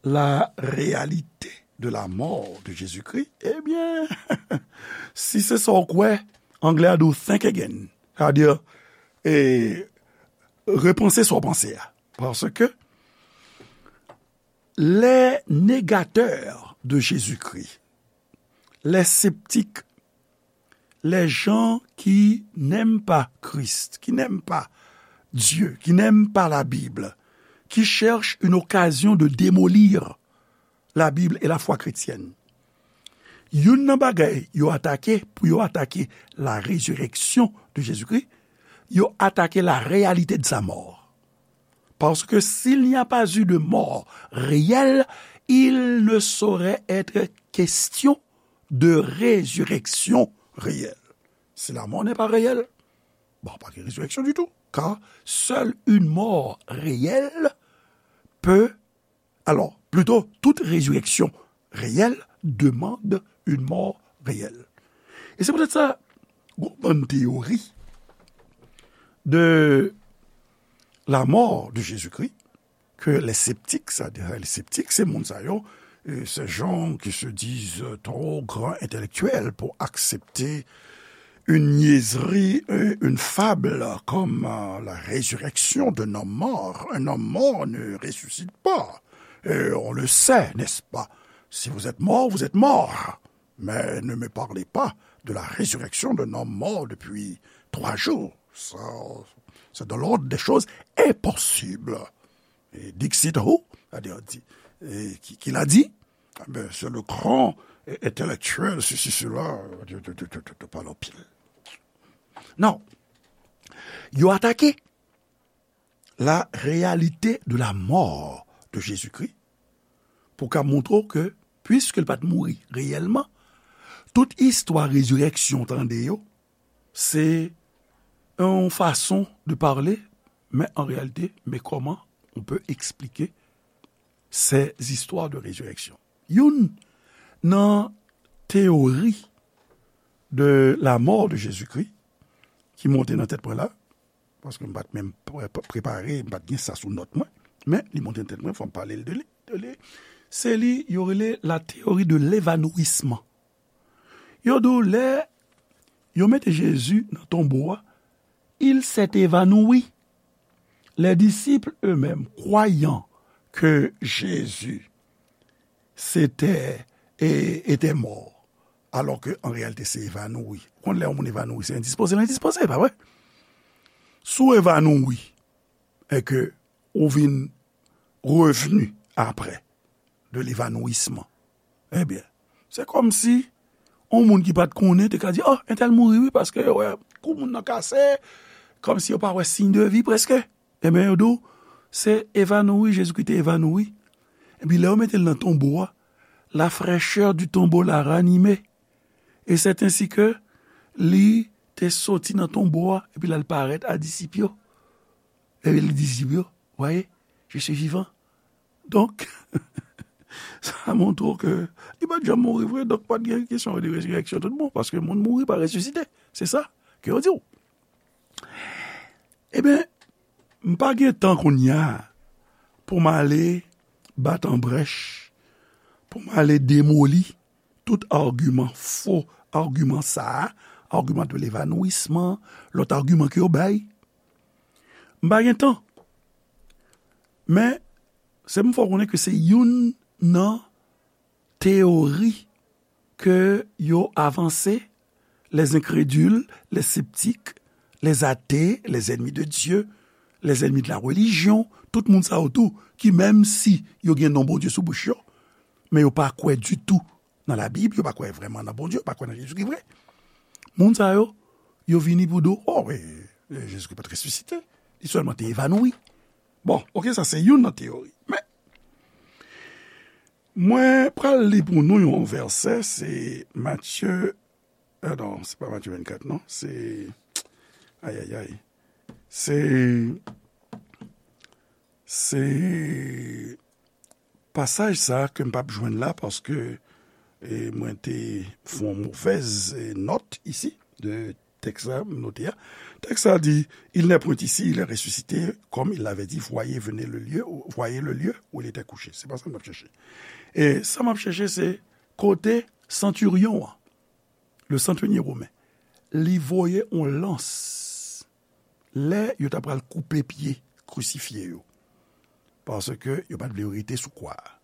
la réalité de la mort de Jésus-Christ. Ebyen, si se sa w kwè, anglè a di w think again. Sa vle di, e, repanse sa w panse a. Paske les négateurs de Jésus-Christ, les sceptiques, les gens qui n'aiment pas Christ, qui n'aiment pas Dieu, qui n'aiment pas la Bible, qui cherchent une occasion de démolir la Bible et la foi chrétienne. Youn nan bagay yo atake, pou yo atake la résurrection de Jésus-Christ, yo atake la réalité de sa mort. Parce que s'il n'y a pas eu de mort réelle, il ne saurait être question de résurrection réelle. Si la mort n'est pas réelle, bon, pas de résurrection du tout, car seule une mort réelle peut, alors, plutôt, toute résurrection réelle demande une mort réelle. E se poutèt sa, gon bann teyori de la mort de Jésus-Christ, ke lè septik, sa, lè septik, se moun sa yo, euh, ces gens qui se disent trop grands intellectuels pour accepter une niaiserie, euh, une fable comme, euh, la résurrection d'un homme mort. Un homme mort ne ressuscite pas. Et on le sait, n'est-ce pas ? Si vous êtes mort, vous êtes mort. Mais ne me parlez pas de la résurrection d'un homme mort depuis trois jours. Ça, c'est de l'ordre des choses impossibles. Et dixit who, c'est-à-dire, di, et qui, qui l'a dit ? Eh ben, c'est le grand entèlektyèl, sesi, sela, yo pale anpil. Non. Yo atake la réalité de la mort de Jésus-Christ pou ka montre w ke, puiske l pa t mouri reyèlman, tout istwa rezirèksyon tande yo, se yon fason de parler, mais en réalité, mais comment on peut expliquer ces histoires de résurrection? Youn nan teyori de la mort de Jésus-Christ ki monte nan tèt mwen la, paske m pa t menm pre-, prepare, m pa t gen sa sou nòt mwen, men li monte nan tèt mwen, fò m pale l de li, de li. Se li, yo rele la théorie de l'évanouissement. Yo di w lè yo mete Jezi nan tonbo a, il s'est évanoui. Les disciples eux-mêmes, croyant que Jésus s'était, et, était mort, alors que en réalité se évanoui. Ou konn lè yon moun évanoui, se endispoze l endispoze, pa vre? Si w évanoui, e ke ou vin revni apre de l'évanouissement, ebyen, se kòmsi yon moun ki pa t konnen te ka di, oh, entèl mouri wi, paske yo wè kou moun nan kase, kòmsi yo pa wè siy de vi prèske. Ebyen, yo di w, se évanoui, Jezikri te évanoui. Epi lè yo mete l nan tonbo a, la fraîcheur du tombeau l'a ranimé. Et c'est ainsi que li te soti nan tonbo a, epi l al parèt a disip yo. Epi li di disip yo, voyez, je suis vivant. Donk, sa montre w ke li pa t janm mouri vre, donk pa t gen kesyon de rezirèksyon tout bon, paske moun mouri pa resisite. Se sa ke yo di w. Ebyen, m pa gen tan kounye a pou m ale bat an brèch, pou m ale demoli tout agiman, fo agiman sa a, agiman de levanwisman, lòt agiman ke yo bay. M pa gen tan. Men, se pou m fè w konnen ke se youn nan teyori ke yo avanse, les incrédules, les sceptiques, les athées, les ennemis de Dieu, les ennemis de la religion, tout moun sa yo tou, ki menm si yo gen non Bondye sou bouch yo, men yo pa kwè ditou nan Labib, yo pa kwè vrèman nan Bondye, yo pa kwè nan Jezikri vre. Moun sa yo, yo vini pou di w, oh, wi, Jezikri pa t resisite, li sèlman te evanoui. Bon, oke, sa se youn nan teyori. Men, mwen pral li pou nou yon vèsè, se Matye, euh, non, se pa Matye vennkat, non, se, ay, ay, ay, se, se pasaj sa ke m p ap jwenn la, paske, e, mwen te fè yon movèz, e, nòt isi de tèks la, m note a. Tèks la di, il n'est point ici, il est ressuscité, comme il l'avait dit, voyez, venez le lieu, voyez le lieu où il était couché. Se pa sa m ap chèche. E sa m ap chèche, se kote santiryon an, le centenier romain, li voye yon lans lè yo ta pral koupe pye krisifye yo. Paske yo pa t vle yo rete sou kwa a.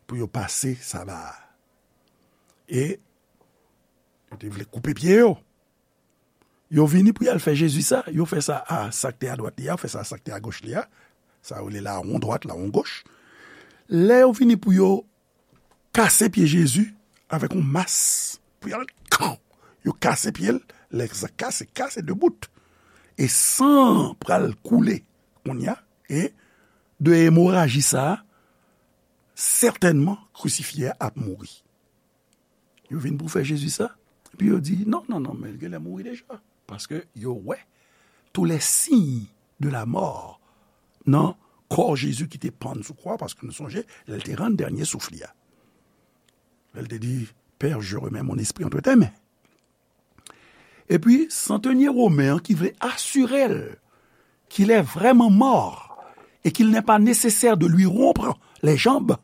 Pou yo pase saba a. E yo te vle koupe pye yo. Yo vini pou y al fè Jezi sa, yo fè sa a sa k te adwat li a, yo fè sa a sa k te agoch li a. Sa yo rele lawon dwat, lawon goch. Lè yo vini pou yo kase pye Jezi avèk yon mas pou y al kan. Yo kase pye l, lè sa kase, kase de bout. E san an pral koule kounye a, e de emoraji sa a, sètènman, krisifye a ap mouri. Yo vin pou fè Jezi sa, epi yo di, non, non, non, men l genlè mouri deja. Paske yo wè tous les signes de la mort nan kò Jezi ki te pann sou kwa, paske nou sonje, lè l te rann dènye souf li a. Lè l te di, Père, je remets mon esprit entre tes mains. Epi, santenye women an ki vle asire l qu'il est vraiment mort et qu'il n'est pas nécessaire de lui rompre les jambes,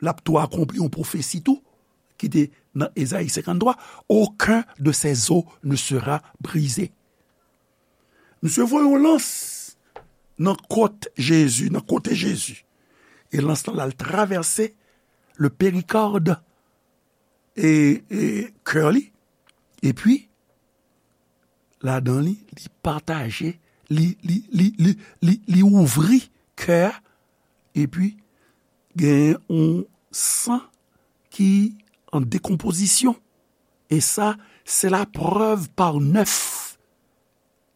l ap tou akonpli yon pwofesi tou, ki te nan Ezayi senkanntwa, aucun de ses os ne sera brisé. Misye voye yon lans nan kot Jezi, nan kote Jezi. E lans lan al travèse le péricorde e, e kè li. Epi, ladan li, li pataje, li, li, li, li, li, li ouvri kè a, epi gen yon san ki en décomposition. Et ça, c'est la preuve par neuf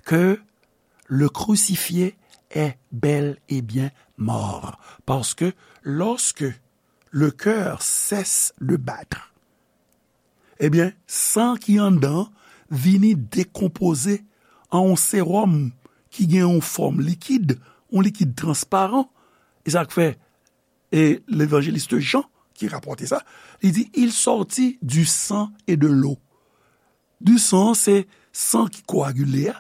que le crucifié est bel et bien mort. Parce que lorsque le cœur cesse de battre, ebyen, san ki anndan vini dekonpoze an yon sewòm ki gen yon fòm likid, yon likid transparan. E sa k fè, e levanjelis Jan ki rapòte sa, li di, il sortit du sang et de l'eau. Du sang, se san ki koagile a,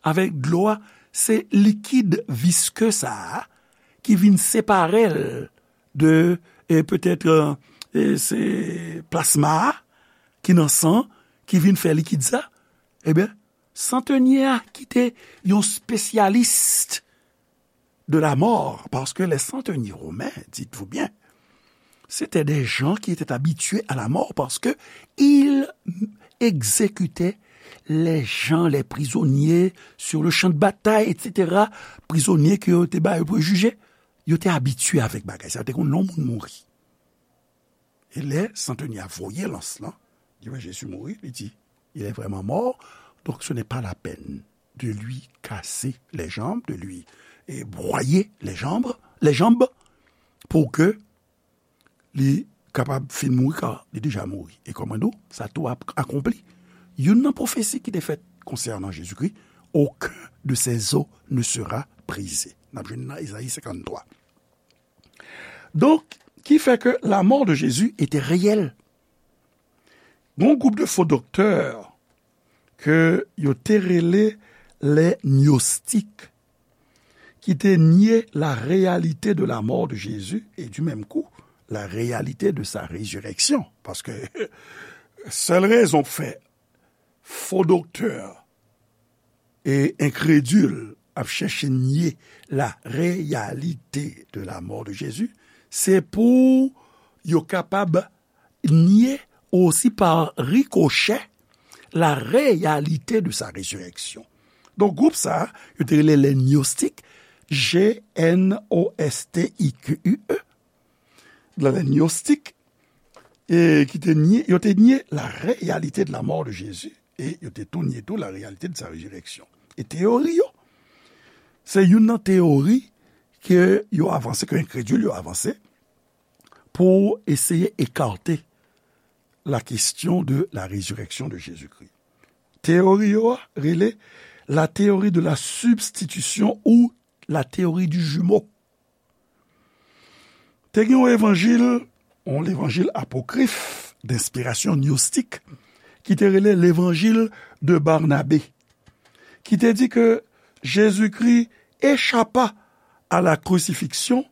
avèk dlo a, se likid viske sa a ki vin separe l de, e petèt, e, se plasma a ki nan san ki vin fè likid sa. Ebyen, santenye a ki te yon spesyalis de la mort, parce que les centeniers romains, dites-vous bien, c'était des gens qui étaient habitués à la mort parce que ils exécutaient les gens, les prisonniers sur le champ de bataille, et cetera. Prizonye ke yo te ba yo pou jije, yo te abitye avèk bagay sa, yo te konn lè yon moun mouri. E lè santenye a voye lans lan, li wè Jezi mouri, li di, il est vraiment mort, donc ce n'est pas la peine de lui casser les jambes, de lui, e, broyer les jambes, les jambes, pou ke li kapab fin mouri, ka li deja mouri. E kòman nou, sa tou ap akonpli. Youn nan pwofesi ki te fèt konsènan Jezikri, aucun de ses os ne sera brisé. N ap jwenn nan Ezayi senkanntwa. Donk, ki fè ke la mort de Jésus était réelle. Gon gwoup de fo doktè ke yo te rele les gnostiques, ki te nye la réalité de la mort de Jésus et du même coup la réalité de sa résurrection. Paske sèl rezon k fè fo doktè e enkredil ap chèche nye la réalité de la mort de Jésus, se pou yo kapab nye osi pa rikochè la réalité de sa résurrection. Donk, gwoup sa a, yo te rele les gnostiques, G N O S T I Q U E, les gnostiques, e ki te nye, yo te nye la réalité de la mort de Jésus, e yo te tou nye tou la réalité de sa résurrection. E teyori yo, se youn nan teyori ke yo avanse, ke enkredil yo avanse, pou eseye ekate la question de la résurrection de Jésus-Christ. Teyori yo a rele la théorie de la substitution ou la théorie du jumeau. Te gen yon evanjil, yon levanjil apokrif, denspirasyon gnostik, ki te rele levanjil de Barnabé, ki te di ke Jezikri échappa à la crucifixion,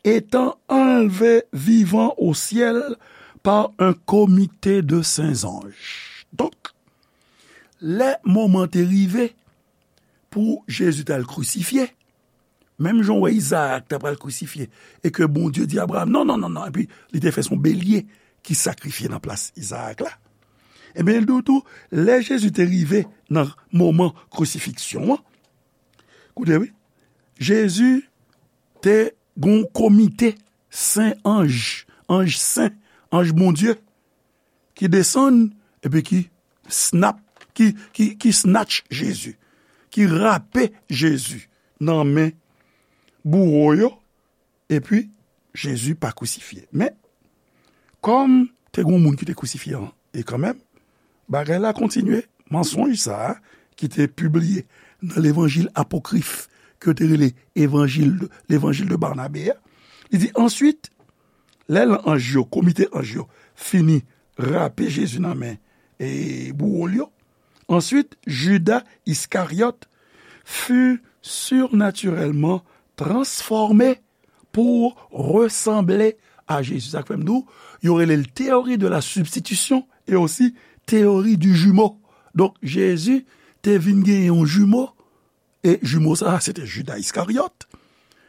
étant enlevé vivant au ciel par un comité de saints anges. Donk, lè moman te rive pou Jezi t al krisifye, menm jan w wè Izaak ta pral krisifye, e ke Bondye di Abraram, non, non, non, non, epi li te fè se yon belye ki sakrifye nan plas Izaak la. Ebyen, l di w tou, lè Jezi te rive nan moman krisifiksyon an, koute wi, Jezi te gen yon komite sen anj, anj sen, anj Bondye, ki desann, epi ki snap, ki, ki, ki snatch Jezi, ki rape Jezi nan men bouwo yo, epi Jezi pa krisifye. Men, kòm te gen yon moun ki te krisifye an, e kanmenm, bagay la kontinye, mansonj sa a, ki te pibliye nan levanjil apokrif, ke yo te rele evanjil de, levanjil de Barnabé a, li di, answit, lè anj yo, komite anj yo, fini rape Jezi nan men e bouwo l yo, answit, Judas Iscariot fut surnaturellement transformé pour ressembler à Jésus. Sa k fè m di w, yo rele l théorie de la substitution e osi théorie du jumeau. Donk, Jezi te vin gen yon jimo, e jimo sa a, se te Judas Iscariot,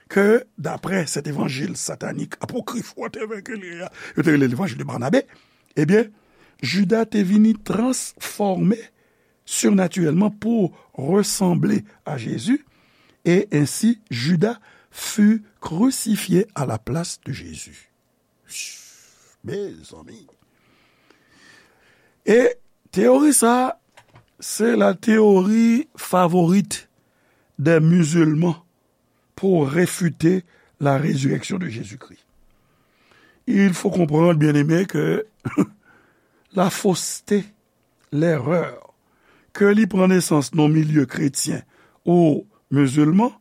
ke, daprè sèt evanjil satanik, apokrif, whatever ke li ye a, yo te rele levanjil de Barnabé, ebyen, Judas te vini transfòme surnaturellement pour ressembler à Jésus, et ainsi Judas fut crucifié à la place de Jésus. Mezanmi. E teyori sa, se la théorie favorite des musulmans pour réfuter la résurrection de Jésus-Christ. Il faut comprendre, bien-aimés, que la fausseté, l'erreur, ke li pran nesans nan milye kretyen ou mizilman,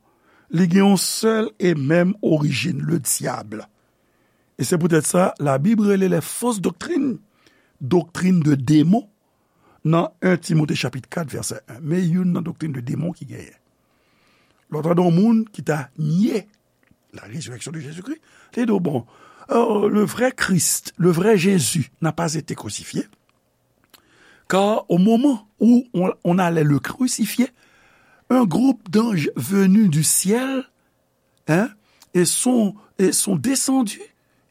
li gen yon sèl e menm orijin, le dyab. E se poutèt sa, Labib rele les fausses doctrines, doctrine de démon, nan en Timote chapit kat, vèsè en. Men youn nan doktrin de démon ki genyen. Lè w tande yon moun ki ta nye la résurrection de Jésus-Christ, li di w, bon, euh, le vrai Christ, le vrai Jésus n'a pas été crucifié, car au moment où on, on allait le crucifier, un groupe d'anges venus du ciel, hein, et sont, et sont descendus,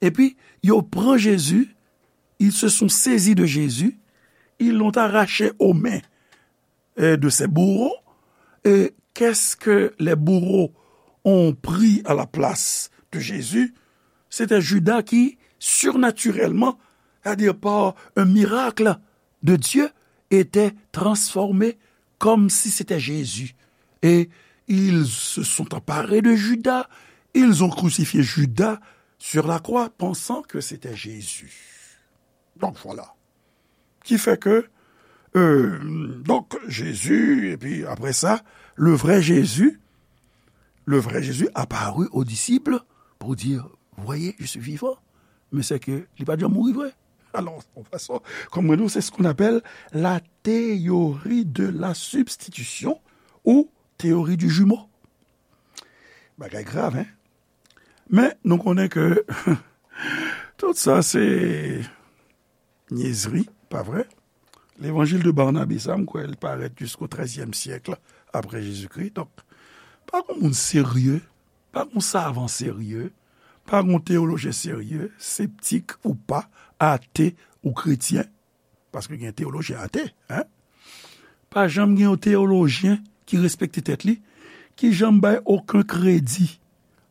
epi yo pran Jezi, ils se sont saisis de Jésus, ils l'ont arraché aux mains, euh, de ses bourreaux. Et qu'est-ce que les bourreaux ont pris à la place de Jésus? C'était Judas qui, surnaturellement, c'est-à-dire par un miracle de Dieu, était transformé comme si c'était Jésus. Et ils se sont emparés de Judas, ils ont crucifié Judas sur la croix, pensant que c'était Jésus. Donc voilà. Ki fè ke, euh, donk, Jezi, epi apre sa, le vrai Jésus, le vrai Jésus apparut aux disciples pour dire, voyez, je suis vivant. Men se ke li pa t janm mouri vre. Alò, yon fason, kòm mwen di w, c'est ce qu'on appelle la théorie de la substitution ou théorie du jumeau. Bagay grav, hein? Men nou konnen ke tout sa se nyezri, pa vre? Levanjil de Barnabe sa, m kwè l parèt jisko trèzyèm syèk apre Jezikri. Donk, pa gon moun serye, pa gon savan serye, pa gon teyolojyen serye, septik ou pa, ate ou kretyen, paske gen teyolojyen ate, hein? Pa janm gen yon teyolojyen ki respekte tèt li, ki janm bay okenn kredi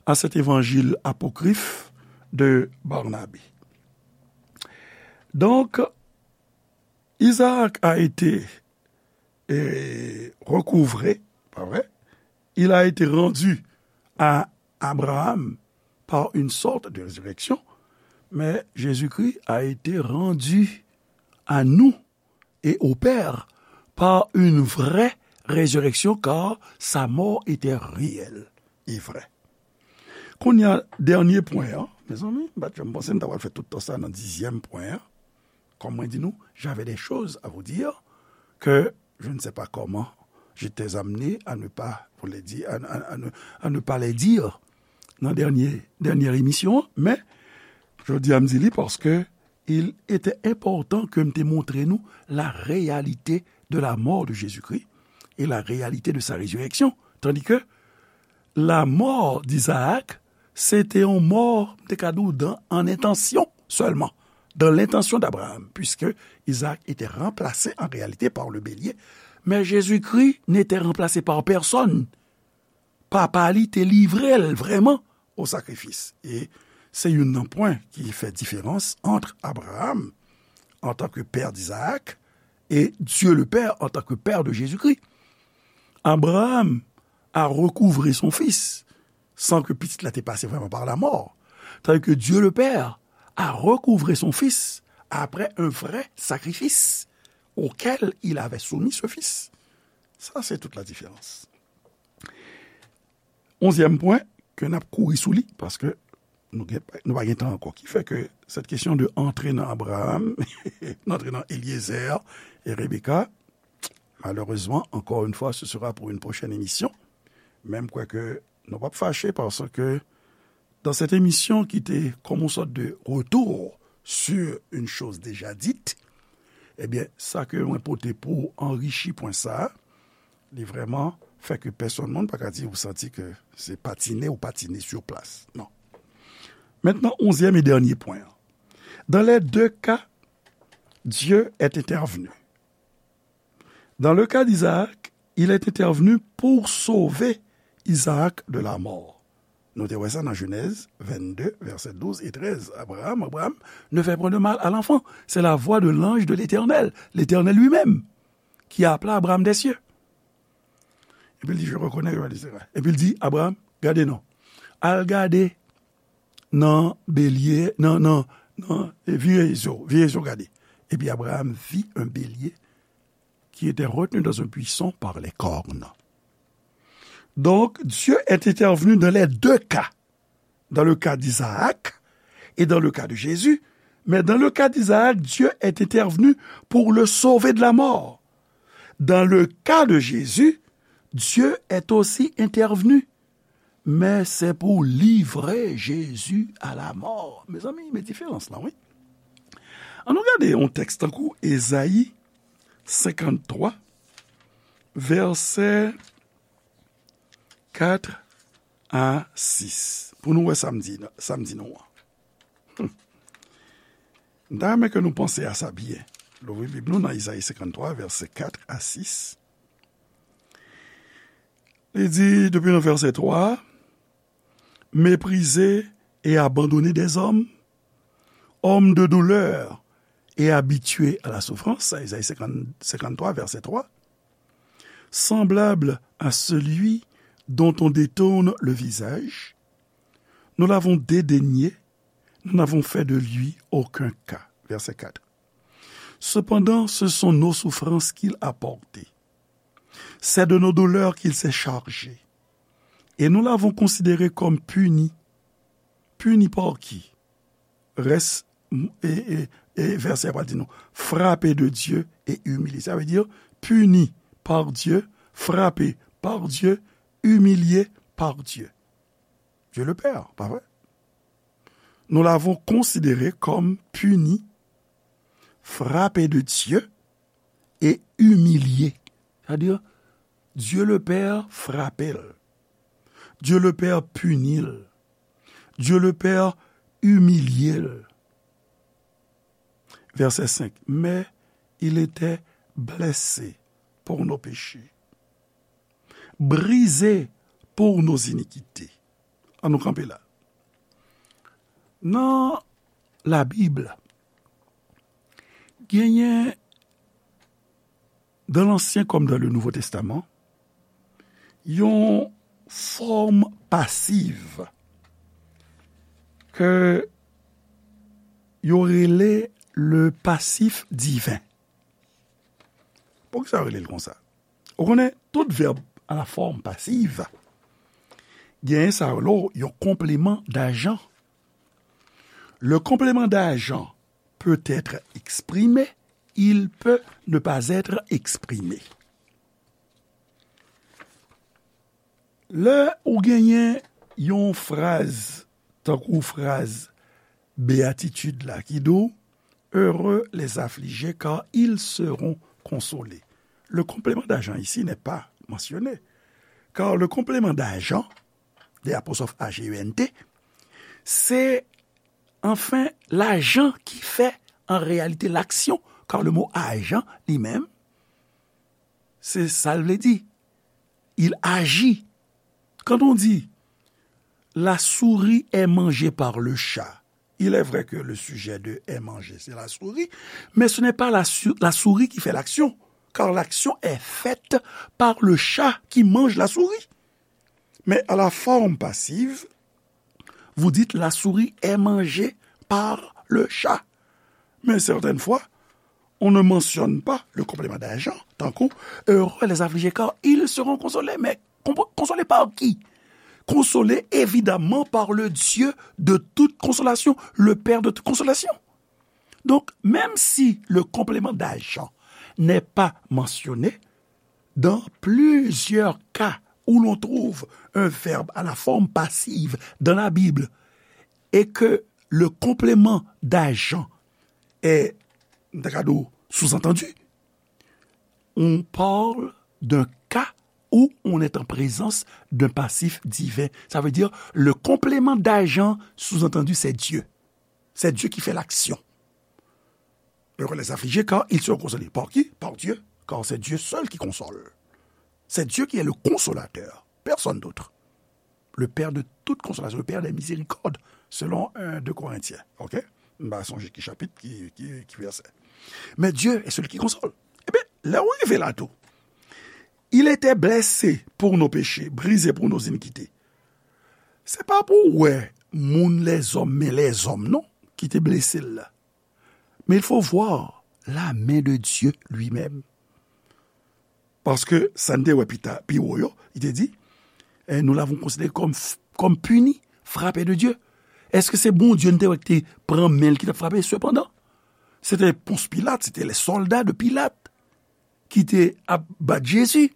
à cet évangile apocryphe de Barnabé. Donc, Isaac a été, eh, recouvré, pas vrai? Il a été rendu à Abraham par une sorte de résurrection, mais Jésus-Christ a été rendu à nous et au Père par une vraie résurrection, car sa mort était réelle et vraie. Kounye a, dènye pwen an, mezanmi, m pa t janm panse m ta pral fè tout tan sa nan dizyèm pwen an. Kòm mwen di nou, j'avais des choses à vous dire que je ne sais pas comment j'étais amené à ne pas vous les dire, à, à, à ne, à ne pas les dire nan dènye, dènye emisyon an, men jodi a m di li paske il était important ke m te montre nou la réalité de la mort de Jésus-Christ et la réalité de sa résurrection. Tandis que la mort d'Isaac, se te yon mò, m te ka di w, dan, an entansyon sèlman, dans l'intention d'Abraham, puisque Isaac était remplacé en réalité par le bélier. Mais Jésus-Christ n'était remplacé par personne. Papa li te livre l vrèman o sakrifis. E se youn nan pwen ki fè diferans ant Abraham, en tant que père d'Isaac, et Dieu le Père en tant que père de Jésus-Christ. Abraham a recouvré son fils sans que pitit la te pase vrèman par la mort, tandis que Dieu le Père a recouvré son fils après un vrai sacrifice auquel il avait soumis ce fils. Sa, se tout la diferans. Onzyèm pwen ke n ap kouri sou li, paske nou gen, nou pa gen tan ankò. Ki fè ke cette question de antre nan Abraham, antre nan Eliezer e Rebecca, malheureusement, encore une fois, ce sera pour une prochaine émission. Men m kwè ke nou p ap fache, paske dans cette émission ki te comme une sorte de retour sur une chose déjà dite, ebyen, sa ke mwen pote pou anrichi pwen sa a, li vrèman fè ke pèsonn moun pa ka di ou santi ke se patine ou patine sur place. Non. Maintenant, onzième et dernier point. Dans les deux cas, Dieu est intervenu. Dans le cas d'Isaac, il est intervenu pour sauver Isaac de la mort. Nou te wè sa nan Jenèz vennde, vèsè douz e trèz. Abraham, Abraham, ne fais point de mal à l'enfant. C'est la voix de l'ange de l'Éternel, l'Éternel lui-même, qui a appelé Abraham des cieux. Epi l di, je reconnais, je reconnais. Epi l di, Abraham, gade non. Al gade nan belye, nan, nan, nan, e vire zo, vire zo gade. Epi Abraham vit un bélier qui était retenu dans un buisson par les cornes. Donc, Dieu est intervenu dans les deux cas. Dans le cas d'Isaac et dans le cas de Jésus. Mais dans le cas d'Isaac, Dieu est intervenu pour le sauver de la mort. Dans le cas de Jésus, Dieu est aussi intervenu, mais c'est pour livrer Jésus à la mort. Mezanmi, men diferans lan, wi. Ann nou gade yon tèks tankou Ezayi senkanntwa, vèsè kat a sis. Pou nou wè sa m di, sa m di nou an. Hmm. M ta renmen ke nou panse a sa byen. Louvri Bib nou nan Ezayi senkanntwa, vèsè kat a sis. Li di, depi nan vèsè twa, méprisé et abandonné des hommes, homme de douleur et habitué à la souffrance, Ezayi senkant, senkanntwa, vèsè twa, semblable à celui dont on détourne le visage, nous l'avons dédaigné, nous n'avons fait de lui aucun cas. Verset quatre. Cependant, ce sont nos souffrances qu'il a portées. C'est de nos douleurs qu'il s'est chargé. Et nous l'avons considéré comme puni. Puni par qui? Rès, e, e, e vèsè a pral di nou, frappé de Dieu et humilié. Sa vle di, puni par Dieu, frappé par Dieu, humilié par Dieu. Dieu le Père, pa vre? Nous l'avons considéré comme puni, frappé de Dieu et humilié. Sa vle di, Dieu le Père frape l. Dieu le Père pini l. Dieu le Père imilye l. Vèsè senk, mais il était blessé pour nos péchés, brisé pour nos iniquités. Ann nou kanpe la. Nan Labib, genyen, dans l'Ancien comme dans le Nouveau Testament, yon fòm pasiv ke yo rele le passif divin. Poukisa yo rele l konsa? Ou konnen, tout vèb à la forme passive, genyen sa yo rele yon complément d'agent. Le complément d'agent peut être exprimé, il peut ne pas être exprimé. Lè ou genyen yon fraz, tankou fraz béatitude la, ki di w, heureux les affligés, car ils seront consolés. Le complément d'agent ici n'est pas mentionné, car le complément d'agent, D apostrophe A G E N T, se, enfin, l'agent qui fait en réalité l'action, car le mot agent, li menm, se sa l vle di. Il agit. Quand on dit, la souris est mangée par le chat, il est vrai que le sujet de est mangé, c'est la souris, mais ce n'est pas la, su- la souris qui fait l'action, car l'action est faite par le chat qui mange la souris. Mais à la forme passive, vous dites, la souris est mangée par le chat. Mais certaines fois, on ne mentionne pas le complément d'agent, tankou, heureux les affligés, car ils seront consolés. Mais con- consolés par qui? Consolés évidemment par le Dieu de toute consolation, le Père de toute consolation. Donc, même si le complément d'agent n'est pas mentionné, dans plusieurs cas où l'on trouve un verbe à la forme passive dans la Bible et que le complément d'agent est, m ta ka di w, sous-entendu, on parle d'un cas où on est en présence d'un passif divin. Ça veut dire, le complément d'agent, sous-entendu, c'est Dieu. C'est Dieu qui fait l'action. Heureux les affligés, car ils seront consolés. Par qui? Par Dieu, car c'est Dieu seul qui console. C'est Dieu qui est le consolateur, personne d'autre. le Père de toute consolation, le Père des miséricordes, selon un, deux Corinthiens. Ok? M pa sonje ki chapit, ki, ki, ki vèsè. Mais Dieu est celui qui console. Ebyen, lè w rive la tou, il était blessé pour nos péchés, brisé pour nos iniquités. Se pa pou w wè moun lèzòm, men lèzòm non, ki te blese l la. Mais il faut voir la main de Dieu lui-même. Paske sa n te wè pita, pi wo yo, li te di, eh, nous l'avons considéré comme, comme puni, frappé de Dieu. Èske se Bondye n te wè ki te pran men l ki t ap frape? Sepandan, se te Pons Pilat, se te lè sòlda de Pilat ki te ap bat Jezi.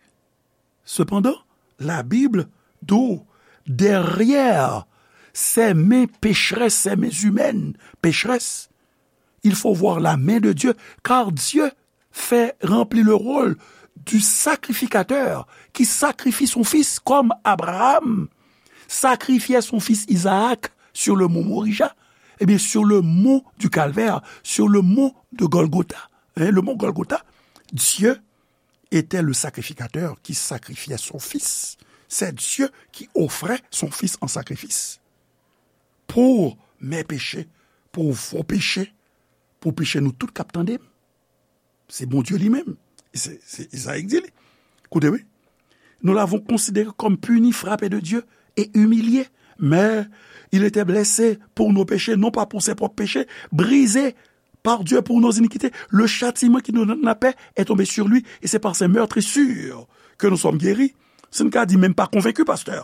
Cependant, la Bible dit, derrière ces mains pécheresses, ces mains humaines pécheresses, il faut voir la main de Dieu, car Dieu fait remplir le rôle du sacrificateur qui sacrifie son fils, comme Abraham sacrifiait son fils Isaac sur le mont Moria, eh bien, sur le mont du Calvaire, sur le mont de Golgotha, hein, le mont Golgotha, Dieu était le sacrificateur qui sacrifiait son fils. C'est Dieu qui offrait son fils en sacrifice pour mes péchés, pour vos péchés, pour péché nou tout k ap tande m. Se Bondye li menm. Se, se Izayi k di li. Koute, wi. Nous l'avons considéré comme puni, frappé de Dieu et humilié. Mais il était blessé pour nos péchés, non pas pour ses propres péchés, brisé par Dieu pour nos iniquités. Le châtiment qui nous donne la paix est tombé sur lui, et c'est par ses meurtrissures que nous sommes guéris. Si n ka di, men m pa konvenki, pastè.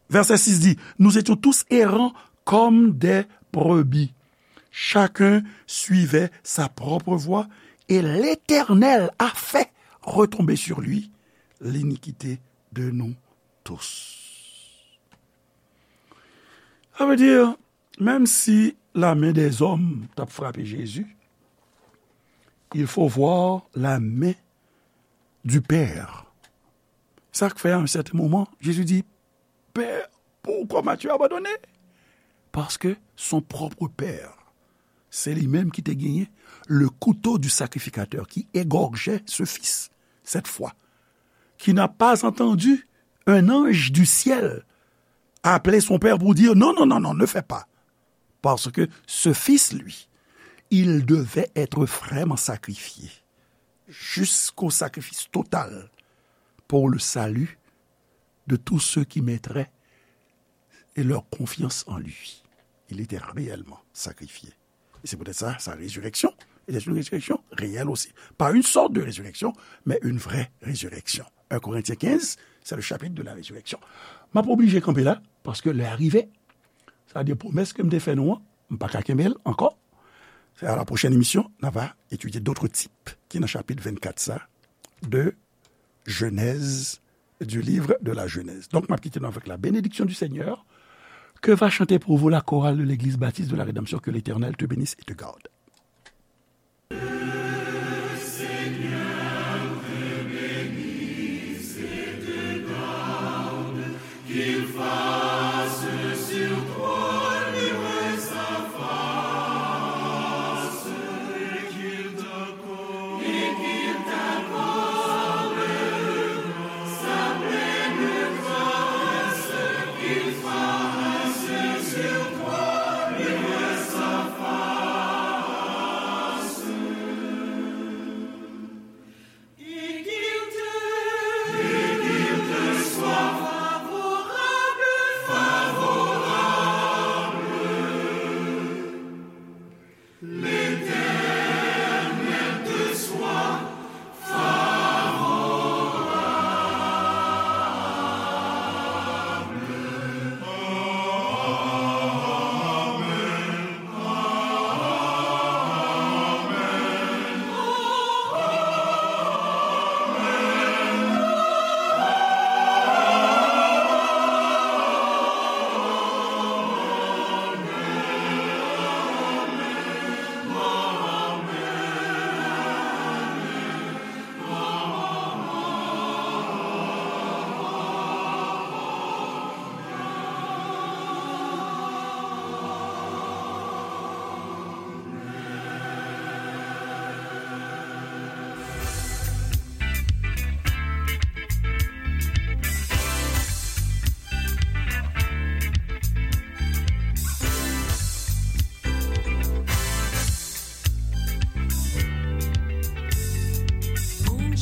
Verset six dit, nous étions tous errants comme des brebis. Chacun suivait sa propre voie, et l'Éternel a fait retomber sur lui l'iniquité de nous tous. Sa vle di, menm si la men dèzòm t ap frape Jezi, il faut voir la main du Père. Sa k fè, à un certain moment, Jésus dit, Père, pourquoi m'as-tu abandonné? Parce que son propre père, c'est lui-même qui te gagné le couteau du sacrificateur qui égorgeait ce fils, cette fois, qui n'a pas entendu un ange du ciel appeler son père pour dire, non, non, non, non, ne fais pas. Parce que ce fils, lui, il devait être vraiment sacrifié jusqu'au sacrifice total pour le salut de tous ceux qui mettraient et leur confiance en lui. Il était réellement sacrifié. Et c'est peut-être ça, sa résurrection. Et c'est une résurrection réelle aussi. Pas une sorte de résurrection, mais une vraie résurrection. Un Corinthiens quinze, c'est le chapitre de la résurrection. M ap oblije kanpe la, paske lè a rive. Sa vle di pwomès ke m te fè nou an, m pa ka kenbe l ankò. C'est à la prochaine émission, n a va étudier d'autres types ki nan chapit vennkat sa de Genèse, du livre de la Genèse. Donc, m ap kite nou avec la bénédiction du Seigneur. Que va chanter pour vous la chorale de l'église baptiste de la rédemption? Que l'Éternel te bénisse et te garde.